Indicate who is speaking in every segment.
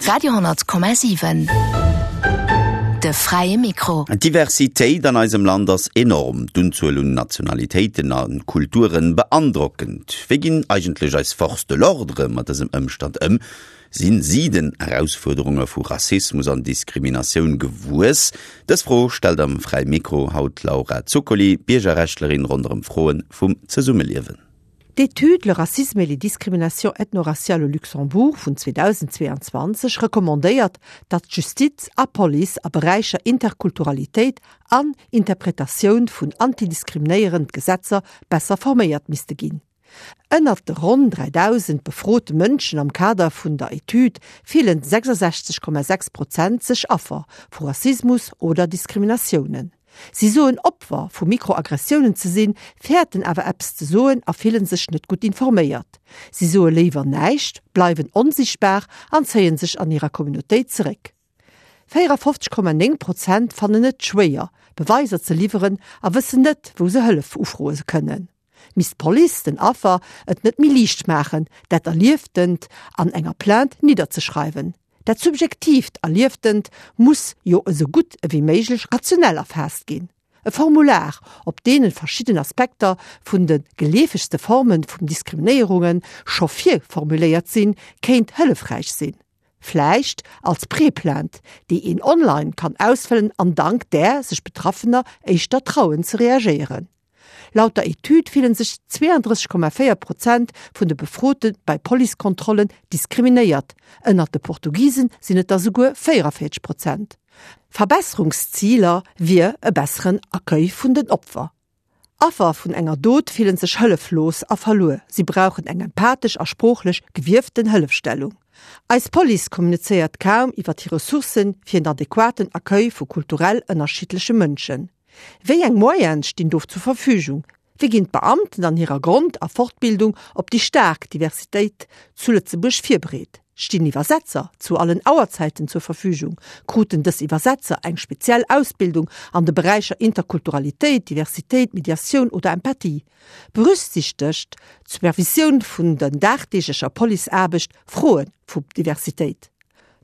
Speaker 1: Radio,7 De fräie Mikro.
Speaker 2: D'Diversitéit an eisem Land ass enorm, d'Unzuel un Nationalitéiten a Kulturen beandrockend. Wéi ginn eigentlech eis Forces de l'ordre mat dësem Ëmstand ëm? Sinn si den Erausfuerderunge vu Rassismus an Diskriminatioun gewuess? Dës Fro stellt am Fräie Mikro haut d'Laura Zuccoli, Biergerrechtlerin ronderëm Froe vum Zesummeliewen.
Speaker 3: D'Etüd Le racisme et les discriminations ethno-raciales au Luxembourg vun 2022 recommandéiert, datt Justiz a Police a Beräicher Interkulturalitéit an Interpretatioun vun antidiskriminéierend Gesetzer besser forméiert misste ginn. Ënnert de ronn 3.000 befrote Mënschen am Kader vun der Etüd fillen 66,6 Prozent sech Affer vu Rassismus oder Diskriminatiounen. Si soen Opfer vu Mikroaggressiounen ze sinn, fäerten awer eppes ze soen a fillen sech net gutt informéiert. Si soe léiwer näischt, bleiwen onsiichtbar an zéien sech an hirer Communautéit zeréck. 54,9 Prozent fannen et schwéier, Beweiser ze liwweren a wëssen net, wou se Hëllef ufroe kënnen. Misst d'Police den Affer et net méi liicht maachen, dat Erlieftent an enger Plainte nidderzeschreiwen? Dat subjektiivt Erlieftent muss jo esou gutt ewéi méiglech rationell erfaasst ginn. E Formular, op deene verschidden Aspekter vun de geleefegste Forme vum Diskriminéierunge scho virformuléiert sinn, kéint hëllefräich sinn. Vläicht als Preplainte, déi een online kann ausfëllen an dank där sech Betraffener éischter trauen ze reagéieren. Laut der Etüd fillen sech 32,4 Prozent vun de Befrote bei Policekontrollen diskriminéiert, ënnert de Portugisen sinn et der souguer 44 Prozent. Verbesserungsziler wier e besseren Accueil vun den Opfer. Affer vun enger Dot fillen sech hëlleflos a verluer, si brauchen eng empathesch a sproochlech gewieften Hëllefstellung. Eis Police kommunizéiert kaum iwwer hir Ressourcen fir en adequaten Accueil vu kulturell ënnerschiddleche Mënschen. Wéi eng Moyene stinn do zur Verfügung? Wéi ginn d'Beamten an hirer Grond a Fortbildung op déi staark Diversitéit zu Lëtzebuerg virbereet? Stinn Iwwersetzer zu allen Auerzäiten zur Verfügung? Kruten dës Iwwersetzer eng speziell Ausbildung an de Beräicher Interkulturalitéit, Diversitéit, Mediatioun oder Empathie? Berücksichtegt d'Supervisioun vun der dagdeeglecher Policeaarbecht Froe vu Diversitéit?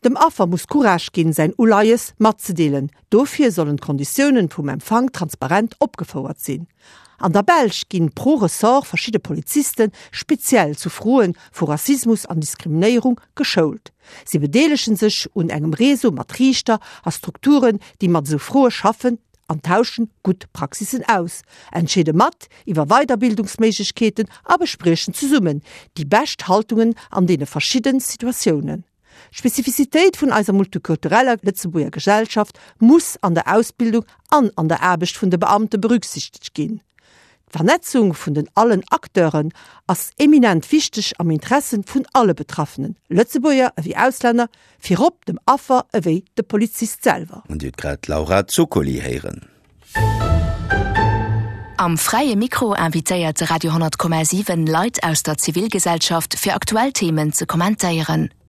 Speaker 3: Dem Affer muss Courage ginn, säin Uleies matzedeelen. Dofir sollen d'Konditiounen vum Empfang transparent opgefouert sinn. An der Belsch ginn pro Ressort verschidde Poliziste speziell zu Froen vu Rassismus an Diskriminéierung geschoult. Si bedeelegen sech un engem Réseau mat Riichter a Strukturen, déi mat esou Froe schaffen an tauschen gutt Praxissen aus, entscheede mat iwwer Weiderbildungsméiglechkeeten a bespriechen zesummen déi bescht Haltungen an deene verschidden Situatiounen. D'Spezifizitéit vun eiser multikultureller Lëtzebuerger Gesellschaft muss an der Ausbildung an an der Aarbecht vun de Beamte berücksichtegt ginn. D'Vernetzung vun den allen Acteuren ass eminent wichteg am Interesse vun alle Betraffenen, Lëtzebuerger ewéi Auslänner, virop dem Affer ewéi de Polizist selwer.
Speaker 2: An Dir hutt grad d'Laura Zuccoli héieren.
Speaker 1: Am Fräie Mikro invitéiert de Radio 10,7 Leit aus der Zivilgesellschaft fir aktuell Themen ze kommentéieren.